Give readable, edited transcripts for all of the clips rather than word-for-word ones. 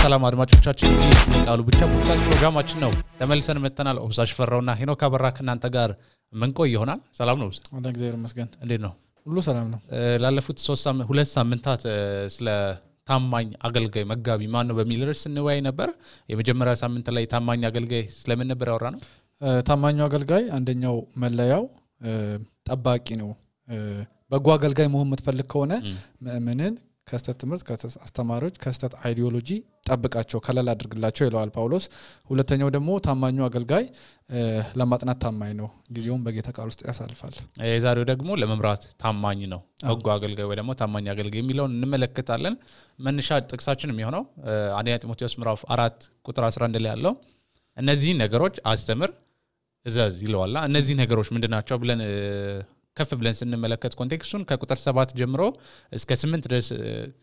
ሰላም አድማጮቻችን ቃሉ ብቻ ፖድካስት ፕሮግራማችን ነው ተመልሰን መተናል ኦብዛሽ ፈራውና ሄኖክ አበራ ከናንተ ጋር ምን ቆይ ይሆናል ሰላም ነው ወደ እግዚአብሔር ይመስገን እንዴት ነው ሁሉ ሰላም ነው ላለፉት 2 ሳምንታት ስለ ታማኝ አገልጋይ መጋቢ ማን ነው በሚል ርዕስ እንወያይ ነበር የመጀመሪያ ሳምንት ላይ ታማኝ አገልጋይ ስለምን ነበር ያወራነው ታማኙ አገልጋይ አንደኛው መለያው ጠባቂ ነው በጎ አገልጋይ መሆን የምትፈልግ ከሆነ ምንን ከስተት ትምህርት ከአስተማሪዎች ከስተት አይዲዮሎጂ ጠብቃቸው ከለላ አድርግላቸው ይለዋል ጳውሎስ ሁለተኛው ደግሞ ታማኙ አገልጋይ ለማጥናት ታማኝ ነው ጊዜውን በጌታ ቃል ውስጥ ያሳልፋል የዛሬው ደግሞ ለመምራት ታማኝ ነው በጎ አገልጋይ ወይ ደግሞ ታማኝ አገልጋይ የሚለውን እንመለከታለን መነሻ ጥቅሳችን የሚሆነው አንደኛ ጢሞቴዎስ ምዕራፍ 4 ቁጥር 11 ላይ ያለው እነዚህ ነገሮች አስተምር እዘዝ ይለዋልና እነዚህ ነገሮች ምንድናቸው ብለን ከፍ ብለን ስንመለከት ኮንቴክስቱን ከቁጥር 7 ጀምሮ እስከ 8 ድረስ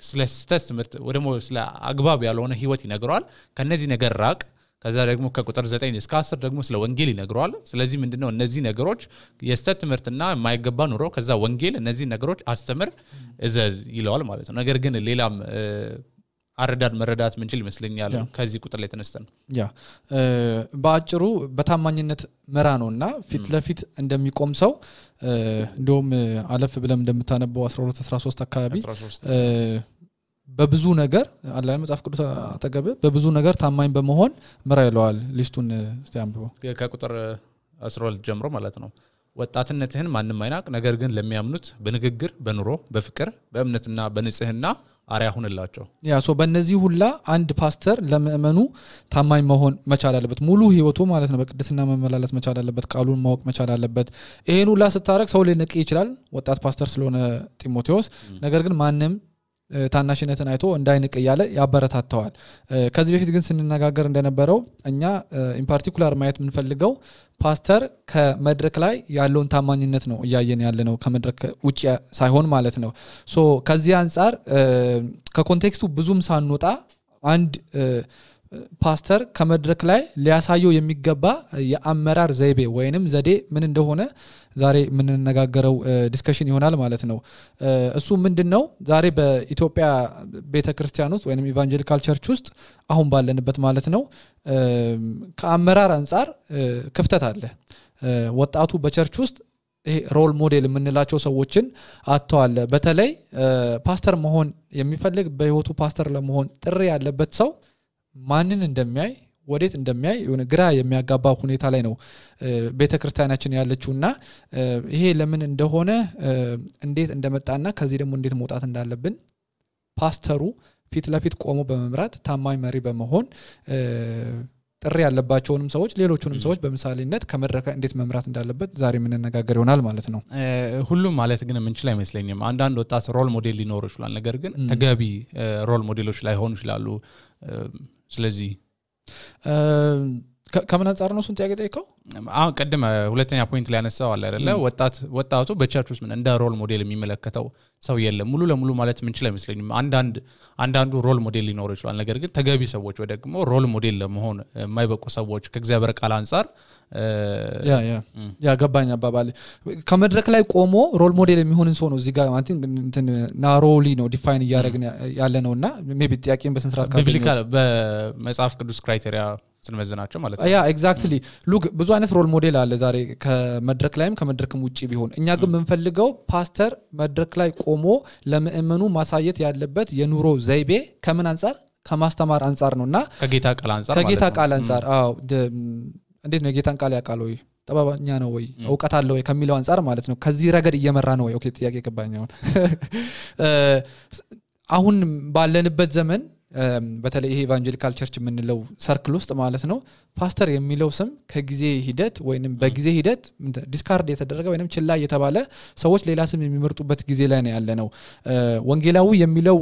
ስለ ስተት ትምህርት ወደሞ ስለ አግባብ ያልሆነ ህይወት ይነግራል ከነዚህ ነገር ራቅ ከዛ ደግሞ ከቁጥር 9 እስከ 10 ደግሞ ስለ ወንጌል ይነግራል ስለዚህ ምንድነው እነዚህ ነገሮች የስተት ትምህርትና የማይገባ ኑሮ ከዛ ወንጌል እነዚህ ነገሮች አስተምር እዘዝ ይለዋል ማለት ነው ነገር ግን ሌላም አረዳድ መረዳት ምንችል ይመስለኛል ከዚህ ቁጥር ላይ ተነስተን ያ ባጭሩ በታማኝነት መራ ነውና ፊት ለፊት እንደሚቆም ሰው እንደውም አለፍ ብለም እንደምታነበው 12 13 አካባቢ በብዙ ነገር አላህ መጽሐፍ ቅዱስ አጠገብ በብዙ ነገር ታማኝ በመሆን መራ ይለዋል ሊስቱን እስቲ አንብበው ከቁጥር 12 ጀምሮ ማለት ነው ወጣትነትህን ማንንም አይናቅ ነገር ግን ለሚያምኑት በንግግር በኑሮ በፍቅር በእምነትና በንጽህና አሪያ ሆነላቸው ያ ሶ በእነዚህ ሁላ አንድ ፓስተር ለምእመኑ ታማኝ መሆን መቻል አለበት ሙሉ ህይወቱ ማለት ነው በቅድስና መመላለስ መቻል አለበት ቃሉን ማወቅ መቻል አለበት ይሄን ሁላ ስታረክ ሰው ሊንቅ ይችላል ወጣት ፓስተር ስለሆነ ጢሞቴዎስ ነገር ግን ማንንም ታናሽነትን አይቶ እንዳይንቅ ያለ ያበረታታዋል ከዚህ በፊት ግን ስንነጋገር እንደነበረው እኛ ኢን ፓርቲኩላር ማየት ምንፈልገው ፓስተር ከመድረክ ላይ ያለውን ታማኝነት ነው ያየን ያለነው ከመድረክ ውጪ ሳይሆን ማለት ነው ሶ ከዚህ አንፃር ከኮንቴክስቱ ብዙም ሳንወጣ አንድ ፓስተር ከመድረክ ላይ ሊያሳየው የሚገባ የአመራር ዘይቤ ወይንም ዘዴ ምን እንደሆነ ዛሬ ምን እንነጋገረው ዲስከሽን ይሆናል ማለት ነው እሱ ምንድነው ዛሬ በኢትዮጵያ ቤተክርስቲያን ውስጥ ወይንም ኢቫንጀሊካል ቸርች ውስጥ አሁን ባለንበት ማለት ነው ከአመራር አንፃር ክፍተት አለ ወጣቱ በቸርች ውስጥ ይሄ ሮል ሞዴል የምንላቸው ሰዎችን አጥተዋል በተለይ ፓስተር መሆን የሚፈልግ በህይወቱ ፓስተር ለመሆን ጥሪ ያለበት ሰው ማንን እንደሚያይ ወዴት እንደሚያይ የሆነ ግራ የሚያጋባ ሁኔታ ላይ ነው ቤተክርስቲያናችን ያለችውና ይሄ ለምን እንደሆነ እንዴት እንደመጣና ከዚህ ደግሞ እንዴት መውጣት እንዳለብን ፓስተሩ ፊት ለፊት ቆሞ በመምራት ታማኝ መሪ በመሆን ጥሪ ያለባቸውንም ሰዎች ሌሎቹንም ሰዎች በመሳሌነት ከመድረክ እንዴት መምራት እንዳለበት ዛሬ ምን እንነጋገር ይሆናል ማለት ነው ሁሉም ማለት ግን ምን ይችላል አይመስለኝም አንዳንድ ወጣት ሮል ሞዴል ሊኖር ይችላል ነገር ግን ተገቢ ሮል ሞዴሎች ላይ ሆኑ ይችላሉ ስለዚህ ከምን አንፃር ነው እሱን ጥያቄ ጠይቀው አሁን ቀደም ሁለተኛ ፖይንት ላይ ያነሳው አለ አይደለ ወጣቱ በቸርች ውስጥ ምን እንደ ሮል ሞዴል የሚመለከተው ሰው የለም ሙሉ ለሙሉ ማለት ምን ይችላል አይመስለኝም አንዳንዱ ሮል ሞዴል ሊኖር ይችላል ነገር ግን ተገቢ ሰዎች ወይ ደግሞ ሮል ሞዴል ለመሆን የማይበቁ ሰዎች ከእግዚአብሔር ቃል አንፃር ያ ገባኝ አባባል ከመድረክ ላይ ቆሞ ሮል ሞዴል የሚሆንን ሰው ነው እዚህ ጋር ማለት እንትን ናሮሊ ነው ዲፋይን ያያረግን ያለ ነውና ሜቢ ጥያቄን በስንስራት ቢብሊካል በመጽሐፍ ቅዱስ ክራይቴሪያ ስንመዝናቸው ማለት ነው ያ ኤግዛክትሊ ሉክ ብዙ አይነት ሮል ሞዴል አለ ዛሬ ከመድረክ ላይም ከመድረክም ውጪ ቢሆን እኛ ግን ምንፈልገው ፓስተር መድረክ ላይ ቆሞ ለምእመኑ ማሳየት ያለበት የኑሮ ዘይቤ ከምን አንፃር ከማስተማር አንፃር ነውና ከጌታ ቃል አንፃር አዎ እንዴት ነው ጌታን ቃል ያቃል ወይ ጠባባኛ ነው ወይ ዕውቀት አለ ወይ ከሚለው አንፃር ማለት ነው ከዚህ ረገድ እየመራ ነው ወይ ኦኬ ጥያቄ ገባኛው አሁን ባለንበት ዘመን በተለይ ይሄ ኢቫንጀሊካል ቸርች የምንለው ሰርክል ውስጥ ማለት ነው ፓስተር የሚለው ስም ከጊዜ ሂደት ወይንም በጊዜ ሂደት ዲስካርድ የተደረገ ወይንም ችላ የተባለ ሰዎች ሌላ ስም የሚመርጡበት ጊዜ ላይ ነው ያለነው ወንጌላዊ የሚለው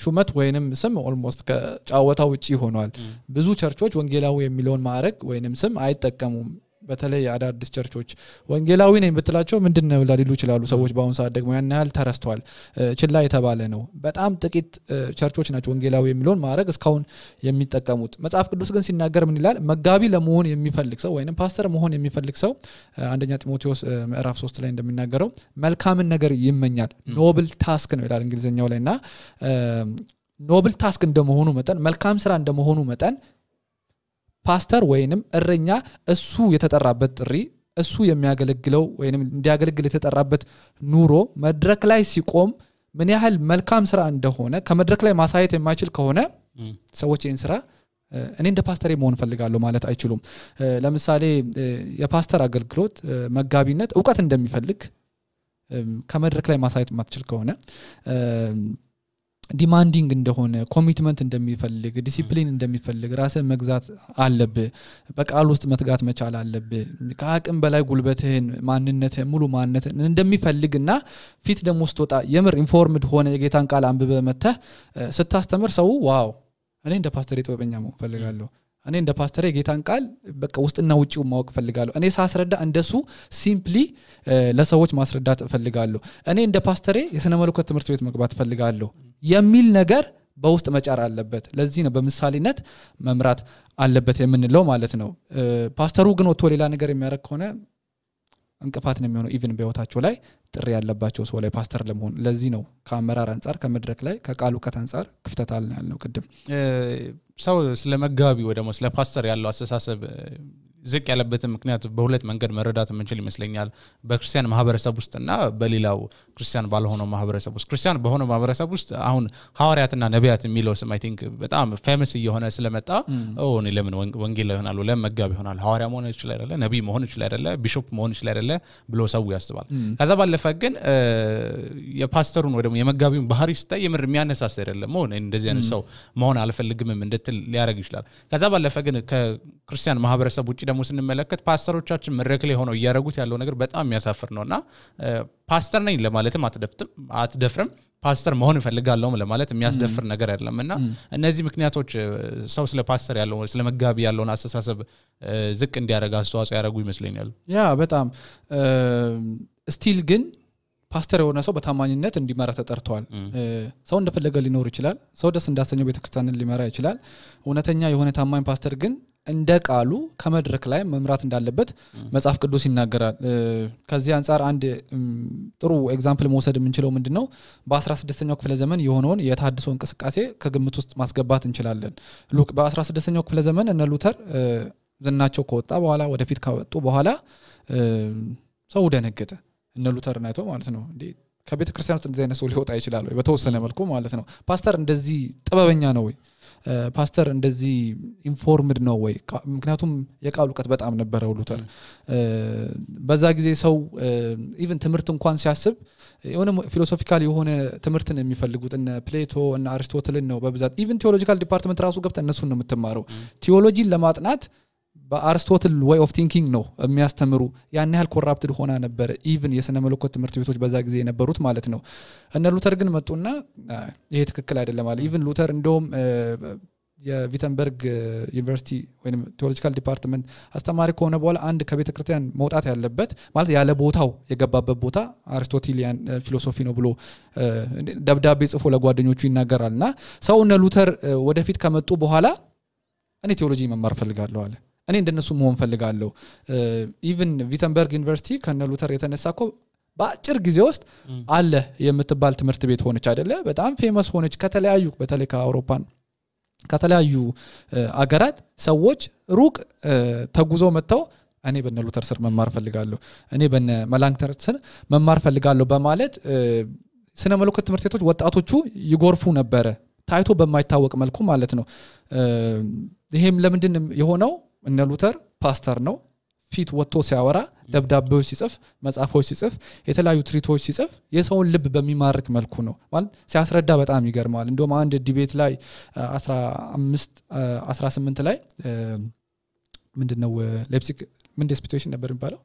ሹመት ወይንም ስም ኦልሞስት ከጫወታው ውጪ ሆኗል ብዙ ቸርቾች ወንጌላዊ የሚለውን ማዕረግ ወይንም ስም አይጠቀሙም በተለይ አዳዲስ ቸርቾች ወንጌላዊ ነኝ ብትላቸው ምንድነው ሊሉ ይችላሉ ሰዎች በአሁን ሰዓት ደግሞ ያን ያህል ተረስተዋል ችላ የተባለ ነው በጣም ጥቂት ቸርቾች ናቸው ወንጌላዊ የሚለውን ማዕረግ እስካሁን የሚጠቀሙት መጽሐፍ ቅዱስ ግን ሲናገር ምን ይላል መጋቢ ለመሆን የሚፈልግ ሰው ወይንም ፓስተር መሆን የሚፈልግ ሰው አንደኛ ጢሞቴዎስ ምዕራፍ 3 ላይ እንደሚናገረው መልካምን ነገር ይመኛል ኖብል ታስክ ነው ይላል እንግሊዘኛው ላይና ኖብል ታስክ እንደመሆኑ መጠን መልካም ስራ እንደመሆኑ መጠን ፓስተር ወይንም እረኛ እሱ የተጠራበት ጥሪ እሱ የሚያገለግለው ወይንም እንዲያገለግል የተጠራበት ኑሮ መድረክ ላይ ሲቆም ምን ያህል መልካም ስራ እንደሆነ ከመድረክ ላይ ማሳየት የማይችል ከሆነ ሰዎች ይህን ስራ እኔ እንደ ፓስተር መሆን ፈልጋለሁ ማለት አይችሉም ለምሳሌ የፓስተር አገልግሎት መጋቢነት ዕውቀት እንደሚፈልግ ከመድረክ ላይ ማሳየት ማትችል ከሆነ ዲማንዲንግ እንደሆነ ኮሚትመንት እንደሚፈልግ ዲሲፕሊን እንደሚፈልግ ራስን መግዛት አለብህ በቃል ውስጥ መትጋት መቻል አለብህ ከአቅም በላይ ጉልበትህን ማንነትህን ሙሉ ማንነትህን እንደሚፈልግና ፊት ደሞ ስትወጣ የምር ኢንፎርምድ ሆነ የጌታን ቃል አንብበ መተህ ስታስተምር ሰው ዋው እኔ እንደ ፓስተር ጥበበኛ መሆን ፈልጋለሁ እኔ እንደ ፓስተር የጌታን ቃል በቃ ውስጥና ውጪው ማወቅ ፈልጋለሁ እኔ ሳስረዳ እንደሱ ሲምፕሊ ለሰዎች ማስረዳት ፈልጋለሁ እኔ እንደ ፓስተር የሥነ መለኮት ትምህርት ቤት መግባት ፈልጋለሁ የሚል ነገር በውስጥ መጫር አለበት ለዚህ ነው በምሳሌነት መምራት አለበት የምንለው ማለት ነው ፓስተሩ ግን ወጥቶ ሌላ ነገር የሚያደርግ ከሆነ እንቅፋት ነው የሚሆነው ኢቭን በህይወታቸው ላይ ጥሪ ያለባቸው ሰው ላይ ፓስተር ለመሆን ለዚህ ነው ከአመራር አንፃር ከመድረክ ላይ ከቃሉ ከታንፃር ክፍተት አለ ያለው ቅድም ሰው ስለመጋቢ ወይ ደግሞ ስለ ፓስተር ያለው አስተሳሰብ ዝቅ ያለበትን ምክንያት በሁለት መንገድ መረዳት የምንችል ይመስለኛል በክርስቲያን ማህበረሰብ ውስጥና በሌላው ክርስቲያን ባልሆነው ማህበረሰብ ውስጥ ክርስቲያን በሆነው ማህበረሰብ ውስጥ አሁን ሐዋርያትና ነቢያት የሚለው ስም አይ ቲንክ በጣም ፌመስ እየሆነ ስለመጣ እኔ ለምን ወንጌል ላይ ይሆናል ለምን መጋቢ ይሆናል ሐዋርያ መሆን ይችላል አይደለ ነብይ መሆን ይችላል አይደለ ቢሾፕ መሆን ይችላል አይደለ ብሎ ሰው ያስባል ከዛ ባለፈ ግን የፓስተሩን ወይ ደግሞ የመጋቢውን ባህሪ ስታይ የምር የሚያነሳስ አይደለም እንደዚህ አይነት ሰው መሆን አልፈልግም እንድትል ሊያረግ ይችላል ከዛ ባለፈ ግን ከክርስቲያን ማህበረሰብ ውጪ ደግሞ ስንመለከት ፓስተሮቻችን መድረክ ላይ ሆነው ያያረጉት ያለው ነገር በጣም የሚያሳፍር ነውና ፓስተር ነኝ ለማለትም አትደፍርም ፓስተር መሆን ፈልጋለሁ ለማለት የሚያስደፍር ነገር አይደለምና እነዚህ ምክንያቶች ሰው ስለ ፓስተር ያለው ስለ መጋቢ ያለውን አስተሳሰብ ዝቅ እንዲያረጋ አስተዋጽኦ ያረጉ ይመስለኛል ያ በጣም ስቲል ግን ፓስተር የሆነ ሰው በታማኝነት እንዲመራ ተጠርቷል ሰው እንደፈለገ ሊኖር ይችላል ሰው ደስ እንዳሰኘው ቤተክርስቲያንን ሊመራ ይችላል እውነተኛ የሆነ ታማኝ ፓስተር ግን እንደ ቃሉ ከመድረክ ላይ መምራት እንዳለበት መጽሐፍ ቅዱስ ይናገራል ከዚህ አንፃር አንድ ጥሩ ኤግዛምፕል መውሰድ የምንችለው ምንድነው በ16ኛው ክፍለ ዘመን የሆነውን የታድሶ እንቅስቃሴ ከግምት ውስጥ ማስገባት እንችላለን በ16ኛው ክፍለ ዘመን እነ ሉተር ዝናቸው ከወጣ በኋላ ወደፊት ከወጡ በኋላ ሰው ደነገጠ እነ ሉተር ናይቶ ማለት ነው እንዴ ከቤተ ክርስቲያን ውስጥ እንደዚህ አይነት ሰው ሊወጣ ይችላል ወይ በተወሰነ መልኩ ማለት ነው ፓስተር እንደዚህ ጥበበኛ ነው ወይ ፓስተር እንደዚህ ኢንፎርምድ ነው ወይ ምክንያቱም የቃሉ ዕውቀት በጣም ነበረው ሉተር በዛ ጊዜ ሰው ኢቭን ትምህርት እንኳን ሲያስብ የሆነ ፊሎሶፊካል የሆነ ትምህርትን የሚፈልጉት እነ ፕሌቶ እና አሪስቶትልን ነው በብዛት ኢቭን ቲዮሎጂካል ዲፓርትመንት ራሱ ገብተ እነሱን ነው የምትማረው ቲዮሎጂን ለማጥናት በአሪስቶትል way of thinking ነው የሚያስተምሩ ያን ያህል ኮራፕትድ ሆና ነበር ኢቭን የሥነ መለኮት ትምህርት ቤቶች በዛ ጊዜ የነበሩት ማለት ነው እነ ሉተር ግን መጡና ይሄ ትክክል አይደለም ማለት ኢቭን ሉተር እንደውም የቪተንበርግ ዩኒቨርሲቲ ወይንም ቲዮሎጂካል ዲፓርትመንት አስተማሪ ከሆነ በኋላ አንድ ከቤተ ክርስቲያን መውጣት ያለበት ማለት ያለ ቦታው የገባበት ቦታ አሪስቶቴሊያን ፊሎሶፊ ነው ብሎ ደብዳቤ ጽፎ ለጓደኞቹ ይናገራልና ሰው እነ ሉተር ወደፊት ከመጡ በኋላ እኔ ቲዮሎጂ መማር ፈልጋለሁ አለ እኔ እንደነሱ መሆን ፈልጋለሁ ኢቭን ቪተንበርግ ዩኒቨርሲቲ ከነ ሉተር የተነሳኮ በአጭር ጊዜ ውስጥ አለ የምትባል ትምህርት ቤት ሆነች አይደለ በጣም ፌመስ ሆነች ከተለያዩ በተለይ ከአውሮፓን ከተለያዩ አገራት ሰዎች ሩቅ ተጉዞ መተው እኔ በነ ሉተር ስር መማር ፈልጋለሁ እኔ በነ መላንክተር ስር መማር ፈልጋለሁ በማለት ስነ መለኮት ትምህርት ቤቶች ወጣቶቹ ይጎርፉ ነበር ታይቶ በማይታወቅ መልኩ ማለት ነው ይሄም ለምንድን የሆነው እነ ሉተር ፓስተር ነው ፊት ወጥቶ ሲያወራ ደብዳቤዎች ሲጽፍ መጽሐፎች ሲጽፍ የተለያዩ ትሪቶች ሲጽፍ የሰውን ልብ በሚማርክ መልኩ ነው ማለት ሲያስረዳ በጣም ይገርማል እንደውም አንድ ዲቤት ላይ 18 ላይ ምንድነው ሌፕሲግ ምን ዲስፒቴሽን ነበር የሚባለው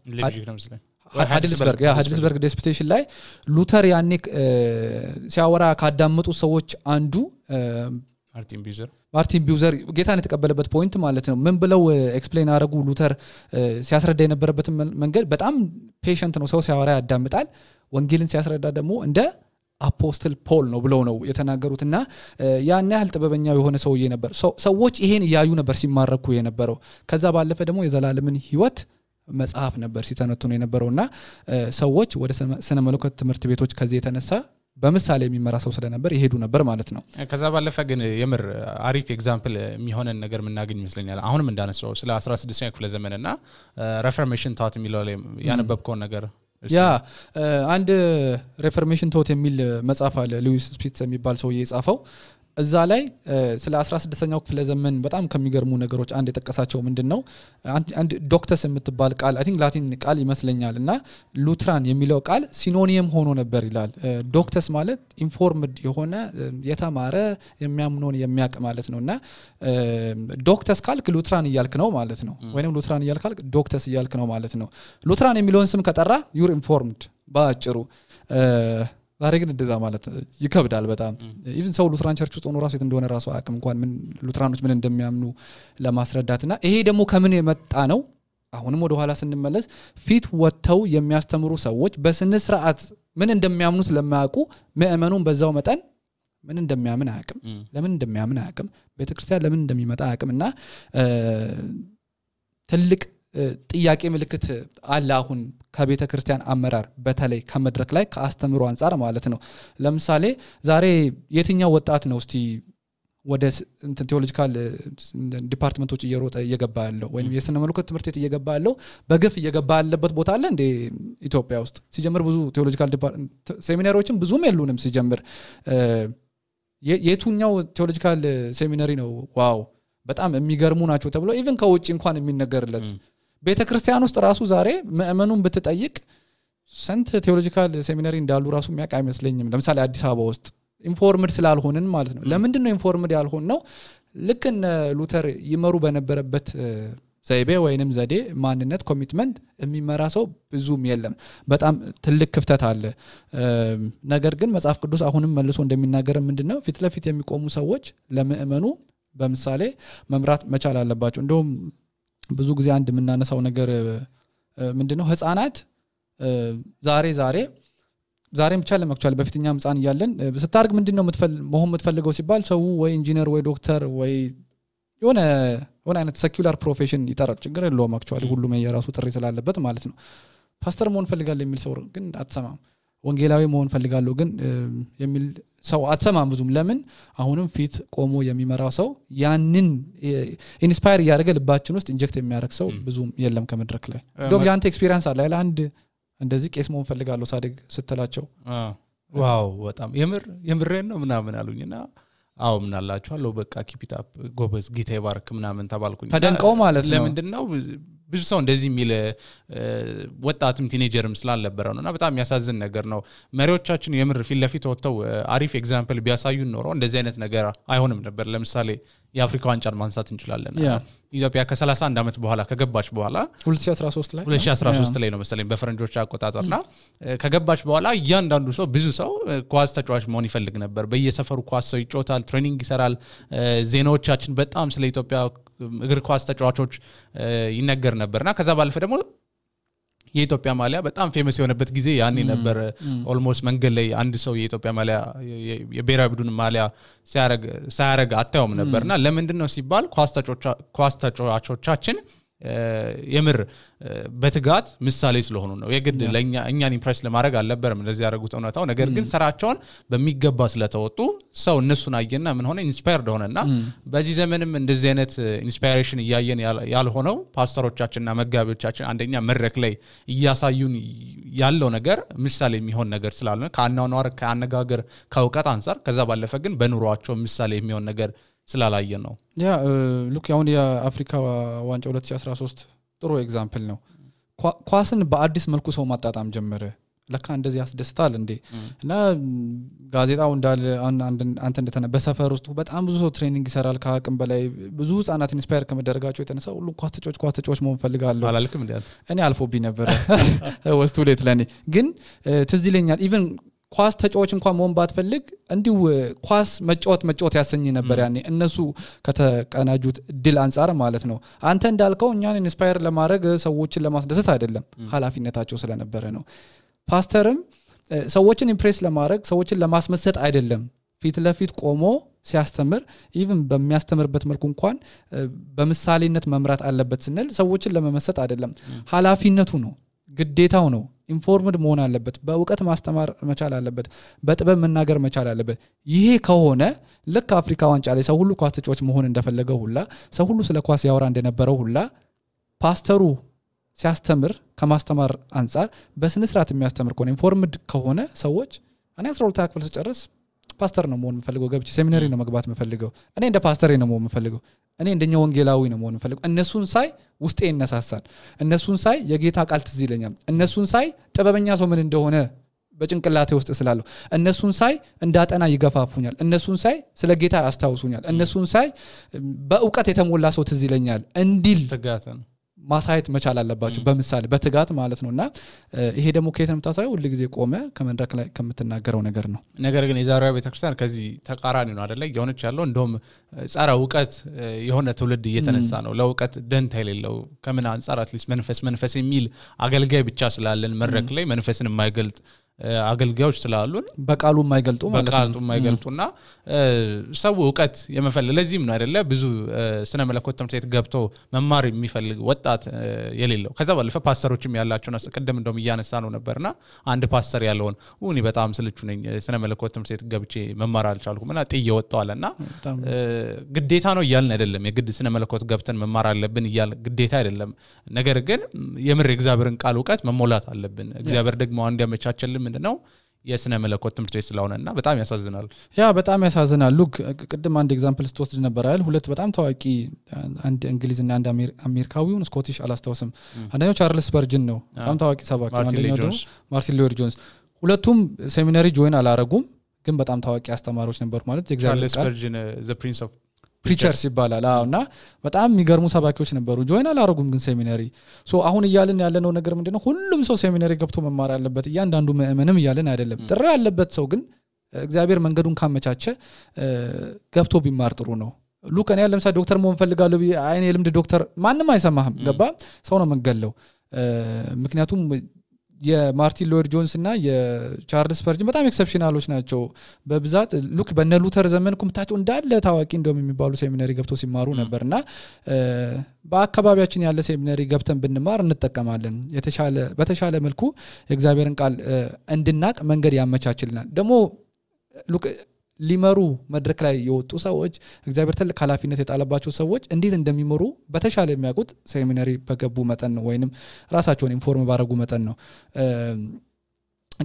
ሃይድልስበርግ ዲስፒቴሽን ላይ ሉተር ያኔ ሲያወራ ካዳመጡ ሰዎች አንዱ ማርቲን ቢውዘር ጌታን የተቀበለበት ፖይንት ማለት ነው ምን ብለው ኤክስፕሌን አረጉ ሉተር ሲያስረዳ የነበረበት መንገድ በጣም ፔሸንት ነው ሰው ሲያወራ ያዳምጣል ወንጌልን ሲያስረዳ ደግሞ እንደ አፖስትል ፖል ነው ብለው ነው የተናገሩትና ያን ያህል ጥበበኛው የሆነ ሰውዬ ነበር ሰዎች ይሄን ያዩ ነበር ሲማረኩ የነበረው ከዛ ባለፈ ደግሞ የዘላለምን ህይወት መጽሐፍ ነበር ሲተነተኑ የነበረውና ሰዎች ወደ ስነ መለኮት ትምህርት ቤቶች ከዚህ የተነሳ በምሳሌ የሚመራ ሰው ስለነበር ይሄዱ ነበር ማለት ነው ከዛ ባለፈ ግን የምር አሪፍ ኤግዛምፕል የሚሆነን ነገር ምናገኝ ይመስለኛል አሁንም እንዳነሳው ስለ 16ኛው ክፍለ ዘመንና ሬፎርሜሽን ታት የሚለው ላይ ያነበብከው ነገር ያ አንድ ሬፎርሜሽን ቶት የሚል መጽሐፍ አለ ሉዊስ ስፒትስ የሚባል ሰው የጻፈው እዛ ላይ ስለ 16ኛው ክፍለ ዘመን በጣም ከሚገርሙ ነገሮች አንድ የጠቀሳቸው ምንድነው አንድ ዶክተስ የምትባል ቃል አይ ቲንክ ላቲን ቃል ይመስለኛልና ሉትራን የሚለው ቃል ሲኖኒየም ሆኖ ነበር ይላል ዶክተስ ማለት ኢንፎርምድ የሆነ የተማረ የሚያምነውን የሚያቅ ማለት ነውና ዶክተስ ካልክ ሉትራን ይያልክ ነው ማለት ነው ወይንም ሉትራን ይያልካል ዶክተስ ይያልክ ነው ማለት ነው ሉትራን የሚለውን ስም ከጠራ ዩር ኢንፎርምድ ባጭሩ ዛሬ ግን እንደዛ ማለት ይከብዳል በጣም ኢቭን ሰው ሉትራን ቸርች ውስጥ ሆኖ ራሱ እንደሆነ ራሱ አቅም እንኳን ምን ሉትራኖች ምን እንደሚያምኑ ለማስረዳትና ይሄ ደግሞ ከምን የመጣ ነው አሁንም ወደ ኋላ ስንመለስ ፊት ወጥተው የሚያስተምሩ ሰዎች በስነ ስርዓት ምን እንደሚያምኑ ስለማያውቁ ምእመኑን በዛው መጠን ምን እንደሚያምን አያውቅም ለምን እንደሚያምን አያውቅም ቤተክርስቲያን ለምን እንደሚመጣ አያውቅምና ትልቅ ጥያቄ ምልክት አለ አሁን ከቤተ ክርስቲያን አመራር በተለይ ከመድረክ ላይ ከአስተምሮ አንፃር ማለት ነው ለምሳሌ ዛሬ የትኛው ወጣት ነው እስቲ ወደ ቴዎሎጂካል ዲፓርትመንቶች እየሮጠ እየገባ ያለው ወይንም የስነ መለኮት ትምህርት ቤት እየገባ ያለው በግፍ እየገባ ያለበት ቦታ አለ እንደ ኢትዮጵያ ውስጥ ሲጀምር ብዙ ቴዎሎጂካል ሴሚናሪዎችም ብዙም የሉንም ሲጀምር የቱኛው ቴዎሎጂካል ሴሚናሪ ነው ዋው በጣም የሚገርሙ ናቸው ተብሎ ኢቭን ከውጭ እንኳን የሚነገርለት ቤተክርስቲያን ውስጥ ራሱ ዛሬ ምእመኑን ብትጠይቅ ሰንት ቴዎሎጂካል ሴሚናሪ እንዳሉ ራሱ የሚያውቅ አይመስለኝም ለምሳሌ አዲስ አበባ ውስጥ ኢንፎርምድ ስላልሆንን ማለት ነው ለምንድን ነው ኢንፎርምድ ያልሆን ነው ልክ እነ ሉተር ይመሩ በነበረበት ዘይቤ ወይንም ዘዴ ማንነት ኮሚትመንት የሚመራ ሰው ብዙም የለም በጣም ትልቅ ክፍተት አለ ነገር ግን መጽሐፍ ቅዱስ አሁንም መልሶ እንደሚናገር ምንድነው ፊት ለፊት የሚቆሙ ሰዎች ለምእመኑ በምሳሌ መምራት መቻል አለባቸው እንደውም ብዙ ጊዜ አንድ የምናነሳው ነገር ምንድነው ህፃናት ዛሬም ብቻ ለማክቹአሊ በፊትኛም ህፃን ይያለን ስታርግ ምንድነው መሆን የምትፈልገው ሲባል ሰው ወይ ኢንጂነር ወይ ዶክተር ወይ የሆነ አይነት ሴኩላር ፕሮፌሽን ይጠራል ችግር የለውም አክቹአሊ ሁሉም የራሱ ጥሪ ስላለበት ማለት ነው ፓስተር መሆን ፈልጋለሁ የሚል ሰው ግን አትሰማም ወንጌላዊ መሆን ፈልጋለሁ ግን የሚል ሰው አትሰማም ብዙም ለምን አሁንም ፊት ቆሞ የሚመራው ሰው ያንን ኢንስፓየር ያደርገ ልባችን ውስጥ ኢንጀክት የሚያደርግ ሰው ብዙም የለም ከመድረክ ላይ ዶም ያንተ ኤክስፒሪየንስ አለ አይደል አንድ እንደዚህ ቄስ መሆን ፈልጋለሁ ሳድግ ስትላቸው ዋው በጣም የምሬን ነው ምናምን አሉኝና አው ምን አላችኋለሁ በቃ ኪፕ ኢት አፕ ጎበዝ ጌታ ይባርክ ምናምን ተባልኩኝ ተደንቀው ማለት ነው ለምንድነው ብዙ ሰው እንደዚህ የሚል ወጣትም ቲኔጀርም ስላልነበረው ነውና በጣም ያሳዝን ነገር ነው መሪዎቻችን የምር ፊት ለፊት ወጥተው አሪፍ ኤግዛምፕል ቢያሳዩን ኖሮ እንደዚህ አይነት ነገር አይሆንም ነበር ለምሳሌ የአፍሪካ ዋንጫን ማንሳት እንችላለን ኢትዮጵያ ከ31 አመት በኋላ ከገባች በኋላ 2013 ላይ ነው መሰለኝ በፈረንጆች አቆጣጠርና ከገባች በኋላ እያንዳንዱ ሰው ብዙ ሰው ኳስ ተጫዋች መሆን ይፈልግ ነበር በየሰፈሩ ኳስ ሰው ይጫወታል ትሬኒንግ ይሰራል ዜናዎቻችን በጣም ስለ ኢትዮጵያ እግር ኳስ ተጫዋቾች ይነገር ነበርና ከዛ ባለፈ ደግሞ የኢትዮጵያ ማሊያ በጣም ፌመስ የሆነበት ጊዜ ያኔ ነበር ኦልሞስት መንገድ ላይ አንድ ሰው የኢትዮጵያ ማሊያ የብሔራዊ ቡድን ማሊያ ሲያረግ አታዩም ነበርና ለምንድነው ሲባል ኳስ ተጫዋቾቻችን የምር በትጋት ምሳሌ ስለሆኑ ነው የግድ ለኛ እኛን ኢምፕሬስ ለማድረግ አልነበረም እንደዚህ ያደረጉት እውነታው ነገር ግን ስራቸውን በሚገባ ስለተወጡ ሰው እነሱን አየና ምን ሆነ ኢንስፓየርድ ሆነና በዚህ ዘመንም እንደዚህ አይነት ኢንስፓይሬሽን ያያየን ያልሆነው ፓስተሮቻችንና መጋቢዎቻችን አንደኛ መድረክ ላይ ያሳዩን ያለው ነገር ምሳሌ የሚሆን ነገር ስላልሆነ ከአናኗር ከአነጋገር ከውቀት አንፃር ከዛ ባለፈ ግን በኑሯቸው ምሳሌ የሚሆን ነገር ስላላየ ነው ያ ሉክ ያውን የአፍሪካ ዋንጫ 2013 ጥሩ ኤግዛምፕል ነው ኳስን በአዲስ መልኩ ሰው ማጣጣም ጀመረ ለካ እንደዚህ ያስደስታል እንዴ እና ጋዜጣው እንዳለ አንተ እንደተነ በሰፈር ውስጥ በጣም ብዙ ሰው ትሬኒንግ ይሰራል ከአቅም በላይ ብዙ ህፃናት ኢንስፓየር ከመደረጋቸው የተነሳ ሁሉ ኳስ ተጫዋች መሆን ፈልጋለሁ አላልክም እንዴ እኔ አልፎብኝ ነበር ወስቱ ሌት ለኔ ግን ትዝ ይለኛል ኢቭን ኳስ ተጫዋች እንኳን መሆን ባትፈልግ እንዲው ኳስ መጫወት ያሰኝ ነበር ያኔ እነሱ ከተቀናጁት ድል አንፃር ማለት ነው አንተ እንዳልከው እኛን ኢንስፓየር ለማድረግ ሰዎችን ለማስደሰት አይደለም ኃላፊነታቸው ስለነበረ ነው ፓስተርም ሰዎችን ኢምፕሬስ ለማድረግ ሰዎችን ለማስመሰጥ አይደለም ፊት ለፊት ቆሞ ሲያስተምር ኢቭን በሚያስተምርበት መልኩ እንኳን በምሳሌነት መምራት አለበት ስንል ሰዎችን ለመመሰጥ አይደለም ኃላፊነቱ ነው ግዴታው ነው ኢንፎርምድ መሆን አለበት በእውቀት ማስተማር መቻል አለበት በጥበብ መናገር መቻል አለበት ይሄ ከሆነ ልክ አፍሪካ ዋንጫ ላይ ሰው ሁሉ ኳስ ተጫዋች መሆን እንደፈለገው ሁላ ሰው ሁሉ ስለ ኳስ ያወራ እንደነበረው ሁላ ፓስተሩ ሲያስተምር ከማስተማር አንፃር በስነ ስርዓት የሚያስተምር ከሆነ ኢንፎርምድ ከሆነ ሰዎች እኔ 12 ክፍል ተጨርስ ፓስተር ነው መሆን የምፈልገው ገብቼ ሴሚናሪ ነው መግባት የምፈልገው እኔ እንደ ፓስተር ነው መሆን የምፈልገው እኔ እንደኛ ወንጌላዊ ነው መሆን የምፈልገው እነሱን ሳይ ውስጤ ይነሳሳል እነሱን ሳይ የጌታ ቃል ትዝ ይለኛል እነሱን ሳይ ጥበበኛ ሰው ምን እንደሆነ በጭንቅላቴ ውስጥ ስላለው እነሱን ሳይ እንዳጠና ይገፋፉኛል እነሱን ሳይ ስለ ጌታ ያስታውሱኛል እነሱን ሳይ በእውቀት የተሞላ ሰው ትዝ ይለኛል እንዲል ተጋተን ማሳየት መቻል አለባችሁ በመሳለ በትጋት ማለት ነውና ይሄ ደግሞ ከየት መጣሳው ሁሉ ጊዜ ቆመ ከመድረክ ላይ ከምትናገረው ነገር ነው ነገር ግን የዛሬው ቤተክርስቲያን ከዚህ ተቃራኒ ነው አይደለ የሆነች ያለው እንደውም ጻራ ዕውቀት የሆነ ትውልድ እየተነሳ ነው ለዕውቀት ደንታ የሌለው ከምን አንፃር አትሊስት መንፈስ የሚል አገልጋይ ብቻ ስላለን መድረክ ላይ መንፈስን የማይገልጥ አገልጋዮች ስላሉን በቃሉ የማይገልጡ ማለት ነው በቃሉ የማይገልጡና ሰው ዕውቀት የመፈለግ ለዚህም ነው አይደለ ብዙ ስነ መለኮት ትምህርት ቤት ገብቶ መማር የሚፈልግ ወጣት የሌለው ከዛ ባለፈ ፓስተሮችም ያላቸውና ቀደም እንደውም እያነሳ ነው ነበርና አንድ ፓስተር ያለውን እኔ በጣም ስልቹ ነኝ ስነ መለኮት ትምህርት ቤት ገብቼ መማር አልቻልኩምና ጥዬ ወጣዋልና ግዴታ ነው ይያልን አይደለም የግድ ስነ መለኮት ገብተን መማር አለብን ይያል ግዴታ አይደለም ነገር ግን የምር እግዚአብሔርን ቃል ዕውቀት መሞላት አለብን እግዚአብሔር ደግሞ አንድ ያመቻቸልን ምንድነው የስነ መለኮት ትምህርት ቤት ስለሆነና በጣም ያሳዝናል በጣም ያሳዝናል ሉክ ቅድም አንድ ኤግዛምፕል ስትወስድ ነበር አይደል ሁለት በጣም ታዋቂ አንድ እንግሊዝና አንድ አሜሪካዊውን ስኮቲሽ አላስታውስም አንደኛው ቻርልስ ስፐርጅን ነው በጣም ታዋቂ ሰባኪ አንደኛው ደግሞ ማርቲን ሉተር ጆንስ ሁለቱም ሴሚናሪ ጆይን አላረጉም ግን በጣም ታዋቂ አስተማሪዎች ነበሩ ማለት የእግዚአብሔር ቃል ስፐርጅን ዘ ፕሪንስ ኦፍ ፕሪቸርስ ይባላል አውና በጣም የሚገርሙ ሰባኪዎች ነበሩ ጆይን አላረጉም ግን ሴሚናሪ ሶ አሁን ይያልን ያለነው ነገር ምንድነው ሁሉም ሰው ሴሚናሪ ገብቶ መማር አለበት እያንዳንዱ ምእመንም ይያልን አይደለም ጥሪ ያለበት ሰው ግን እግዚአብሔር መንገዱን ካመቻቸ ገብቶ ቢማር ጥሩ ነው ሉክ እኔ ለምሳሌ ዶክተር መሆን ፈልጋለሁ አይኔ ልምድ ዶክተር ማንንም አይሰማህም ገባ ሰው ነው መንገለው ምክንያቱም የማርቲን ሉተር ጆንስ እና የቻርልስ ስፐርጅን በጣም ኤክሰፕሽናሎች ናቸው በብዛት ሉክ በነ ሉተር ዘመን ኩምታቸው እንዳለ ታዋቂ እንደውም የሚባሉ ሴሚናሪ ገብቶ ሲማሩ ነበርና በአካባቢያችን ያለ ሴሚናሪ ገብተን ብንማር እንጠቀማለን በተሻለ መልኩ የእግዚአብሔርን ቃል እንድናቅ መንገድ ያመቻችልናል ደግሞ ሉክ ሊመሩ መድረክ ላይ የወጡ ሰዎች እግዚአብሔር ትልቅ ኃላፊነት የጣለባቸው ሰዎች እንዴት እንደሚመሩ በተሻለ የሚያውቁት ሴሚናሪ በገቡ መጠን ነው ወይንም ራሳቸውን ኢንፎርም ባረጉ መጠን ነው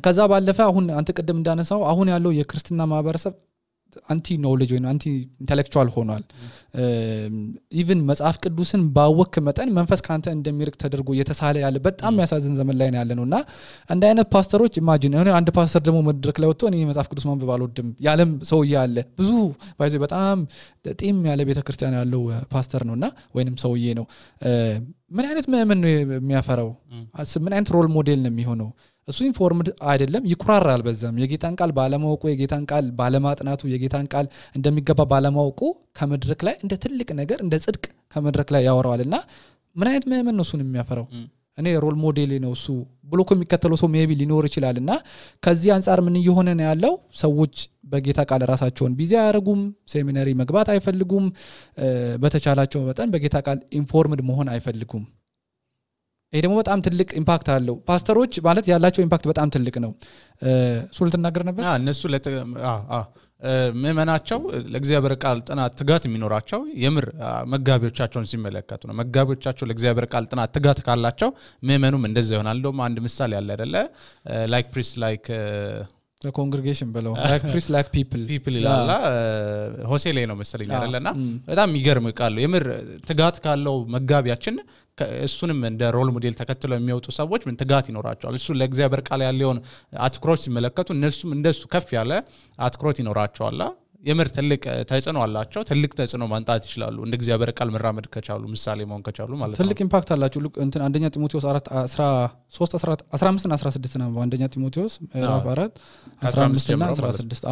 ከዛ ባለፈ አሁን አንተ ቀደም እንዳነሳው አሁን ያለው የክርስቲና ማህበረሰብ አንቲ ኖሌጅ ወይ አንቲ ኢንተሌክቹዋል ሆኗል ኢቭን መጽሐፍ ቅዱስን ባወክ መጠን መንፈስ ካንተ እንደሚርቅ ተደርጎ የተሳለ ያለ በጣም ያሳዝን ዘመን ላይ ያለነውና አንድ አይነት ፓስተሮች ኢማጂን አንድ ፓስተር ደግሞ መድረክ ላይ ወጥቶ እኔ መጽሐፍ ቅዱስ ማንበብ አልወድም ያለም ሰው ያለ ብዙ ባይዘ በጣም ጢም ያለ ቤተክርስቲያን ያለው ፓስተር ነውና ወይንም ሰውዬ ነው ምን አይነት ምእመን ነው የሚያፈራው ምን አይነት ሮል ሞዴል ነው የሚሆነው እሱ ኢንፎርምድ አይደለም ይኩራራል በዛም የጌታን ቃል ባለማወቁ የጌታን ቃል ባለማጥናቱ የጌታን ቃል እንደሚገባ ባለማወቁ ከመድረክ ላይ እንደ ትልቅ ነገር እንደ ጽድቅ ከመድረክ ላይ ያወራዋልና ምን አይነት ምእመን ነው እሱን የሚያፈራው እኔ ሮል ሞዴል ነው እሱ ብሎኮ የሚከተለው ሰው ሜቢ ሊኖር ይችላልና ከዚህ አንፃር ምን እየሆነ ነው ያለው ሰዎች በጌታ ቃል ራሳቸውን ቢዚ ያረጉም ሴሚናሪ መግባት አይፈልጉም በተቻላቸው መጠን በጌታ ቃል ኢንፎርምድ መሆን አይፈልጉም ይሄ ደግሞ በጣም ትልቅ ኢምፓክት አለው ፓስተሮች ማለት ያላቸው ኢምፓክት በጣም ትልቅ ነው ሱል ተናገር ነበር እነሱ ምእመናቸው ለእግዚአብሔር ቃል ጥናት ትጋት የሚኖራቸው የምር መጋቢዎቻቸውን ሲመለከቱ ነው መጋቢዎቻቸው ለእግዚአብሔር ቃል ጥናት ትጋት ካላቸው ምእመኑም እንደዛ ይሆናል እንደውም አንድ ምሳሌ ያለ አይደለ ላይክ ፕሪስት ላይክ the congregation below like priest like people ይላል ሆሴ ላይ ነው መሰለኝ አይደለና በጣም የሚገርም ቃል የምር ትጋት ካለው መጋቢያችን እሱንም እንደ ሮል ሞዴል ተከትለው የሚወጡ ሰዎች ምን ትጋት ይኖራቸዋል እሱ ለእግዚአብሔር ቃል ያለውን አትኩሮት ሲመለከቱ እነሱም እንደሱ ከፍ ያለ አትኩሮት ይኖራቸዋል የምር ትልቅ ተጽዕኖ አላቸው ትልቅ ተጽዕኖ ማንጣት ይችላሉ እንደ እግዚአብሔር ቃል መራመድ ከቻሉ ምሳሌ መሆን ከቻሉ ማለት ነው ትልቅ ኢምፓክት አላቸው እንትን አንደኛ ጢሞቴዎስ 4:13-15 እና 16 ነው አንደኛ ጢሞቴዎስ ምዕራፍ 4:15 እና 16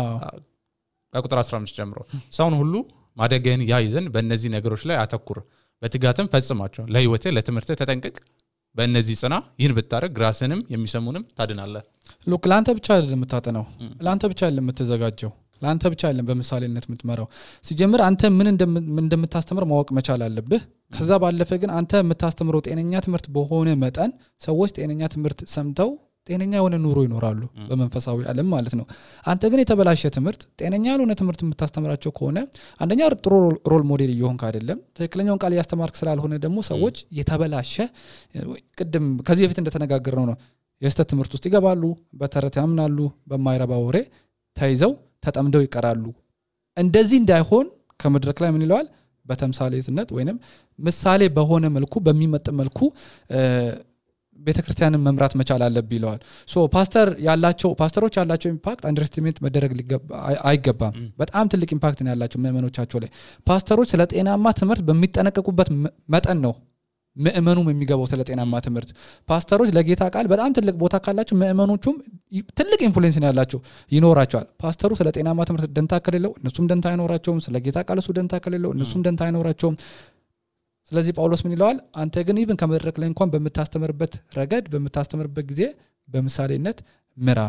ቁጥር 15 ጀምሮ ሰውን ሁሉ ማደገን ያይዘን በእነዚህ ነገሮች ላይ አተኩር በትጋትም ፈጽማቸው ለህይወቴ ለትምህርቴ ተጠንቀቅ በእነዚህ ጽና ይህን ብታረግ ራስንም የሚሰሙንም ታድናለህ ሉክ ላንተ ብቻ አይደለም የምታጠናው ላንተ ብቻ አይደለም የምትዘጋጀው ላንተ ብቻ አይደለም በመሳሌነት የምትመራው ሲጀምር አንተ ምን እንደምታስተምር ማወቅ መቻል አለብህ ከዛ ባለፈ ግን አንተ የምታስተምረው ጤነኛ ትምህርት በሆነ መጠን ሰዎች ጤነኛ ትምህርት ሰምተው ጤነኛ የሆነ ኑሮ ይኖራሉ በመንፈሳዊ ዓለም ማለት ነው አንተ ግን የተበላሸ ትምህርት ጤነኛ ያልሆነ ትምህርት የምታስተምራቸው ከሆነ አንደኛ ጥሩ ሮል ሞዴል እየሆንክ አይደለም ትክክለኛውን ቃል ያስተማርክ ስላልሆነ ደግሞ ሰዎች የተበላሸ ቅድም ከዚህ በፊት እንደተነጋገርነው ነው የስተት ትምህርት ውስጥ ይገባሉ በተረት ያምናሉ በማይረባ ወሬ ተይዘው ተጠምደው ይቀራሉ እንደዚህ እንዳይሆን ከመድረክ ላይ ምን ይለዋል በተምሳሌትነት ወይንም ምሳሌ በሆነ መልኩ በሚመጥ መልኩ ቤተክርስቲያንን መምራት መቻል አለብኝ ይለዋል ሶ ፓስተሮች ያላቸው ኢምፓክት አንደርስቲሜት መደረግ አይገባም በጣም ትልቅ ኢምፓክት ነው ያላቸው ምእመኖቻቸው ላይ ፓስተሮች ስለ ጤናማ ትምህርት በሚጠነቀቁበት መጠን ነው ምእመኑም የሚገባው ስለ ጤናማ ትምህርት ፓስተሮች ለጌታ ቃል በጣም ትልቅ ቦታ ካላቸው ምእመኖቹም ትልቅ ኢንፍሉዌንስ ነው ያላቸው ይኖራቸዋል ፓስተሩ ስለ ጤናማ ትምህርት ደንታ ከሌለው እነሱም ደንታ አይኖራቸውም ስለ ጌታ ቃል እሱ ደንታ ከሌለው እነሱም ደንታ አይኖራቸውም ስለዚህ ጳውሎስ ምን ይለዋል አንተ ግን ኢቭን ከመድረክ ላይ እንኳን በመታስተምርበት ረገድ በመታስተምርበት ጊዜ በምሳሌነት ምራ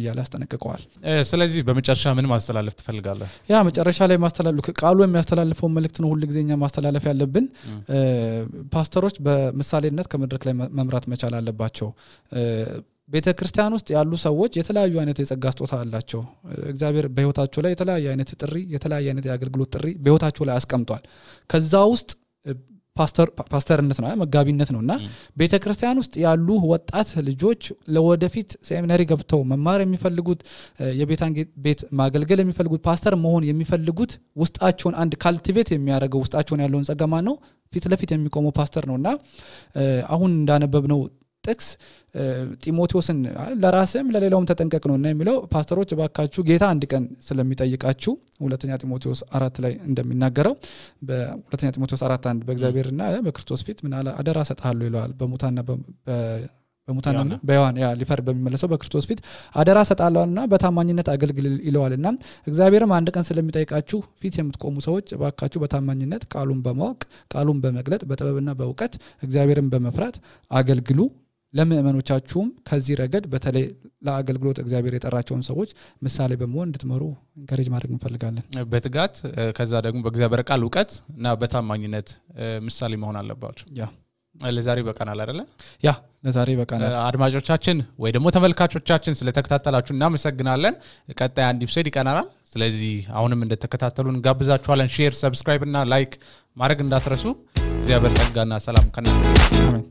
ይያል ያስጠነቅቀዋል ስለዚህ በመጨረሻ ምን ማስተላለፍ ትፈልጋለህ ያ መጨረሻ ላይ ማስተላለፍ ቃሉ የሚያስተላልፈው መልእክት ነው ሁሉ ጊዜኛ ማስተላለፍ ያለብን ፓስተሮች በምሳሌነት ከመድረክ ላይ መምራት መቻል አለባቸው ቤተክርስቲያን ውስጥ ያሉ ሰዎች የተለያዩ አይነት የጸጋ ስጦታ አላቸው እግዚአብሔር በህይወታቸው ላይ የተለያየ አይነት ጥሪ የተለያየ አይነት የአገልግሎት ጥሪ በህይወታቸው ላይ አስቀምጧል ከዛ ውስጥ ፓስተርነት ነው መጋቢነት ነውና ቤተክርስቲያን ውስጥ ያሉ ወጣት ልጆች ለወደፊት ሴሚናሪ ገብተው መማር የሚፈልጉት የቤታን ቤት ማገልገል የሚፈልጉት ፓስተር መሆን የሚፈልጉት ውስጣቸውን አንድ ካልቲቬት የሚያደርገው ውስጣቸውን ያለውን ጸጋ ማን ነው ፊት ለፊት የሚቆመው ፓስተር ነውና አሁን እንዳነበብነው ጥቅስ ጢሞቴዎስን ለራስም ለሌላውም ተጠንቀቅ ነውና የሚለው ፓስተሮች ባካችሁ ጌታ አንድ ቀን ስለሚጠይቃችሁ ሁለተኛ ጢሞቴዎስ 4 ላይ እንደሚናገረው በሁለተኛ ጢሞቴዎስ 4:1 በእግዚአብሔርና በክርስቶስ ፊት ምን አለ አደራ ሰጣለሁ ይላል በሙታና በዮሐን ሊፈር በሚመለሰው በክርስቶስ ፊት አደራ ሰጣለውና በታማኝነት አገልግል ይለዋልና እግዚአብሔርም አንድ ቀን ስለሚጠይቃችሁ ፊት የምትቆሙ ሰዎች ባካችሁ በታማኝነት ቃሉን በማወቅ ቃሉን በመግለጥ በጥበብና በእውቀት እግዚአብሔርን በመፍራት አገልግሉ ለምእመኖቻችሁም ከዚህ ረገድ በተለይ ለአገልግሎት እግዚአብሔር የጠራቸውን ሰዎች ምሳሌ በመሆን እንድትመሩ ኢንካሬጅ ማድረግ እንፈልጋለን በትጋት ከዛ ደግሞ በእግዚአብሔር ቃል ዕውቀት እና በታማኝነት ምሳሌ መሆን አለባችሁ ያ ለዛሬ በቃናል አይደለ ያ ለዛሬ በቃናል አድማጮቻችን ወይ ደግሞ ተመልካቾቻችን ስለተከታተላችሁ እናመሰግናለን ቀጣይ አንድ ኢፒሶድ ይቀናናል ስለዚህ አሁንም እንደተከታተሉን ጋብዛችኋለን ሼር ሰብስክራይብ እና ላይክ ማድረግ እንዳትረሱ እግዚአብሔር ጸጋና ሰላም ከናንተ አሜን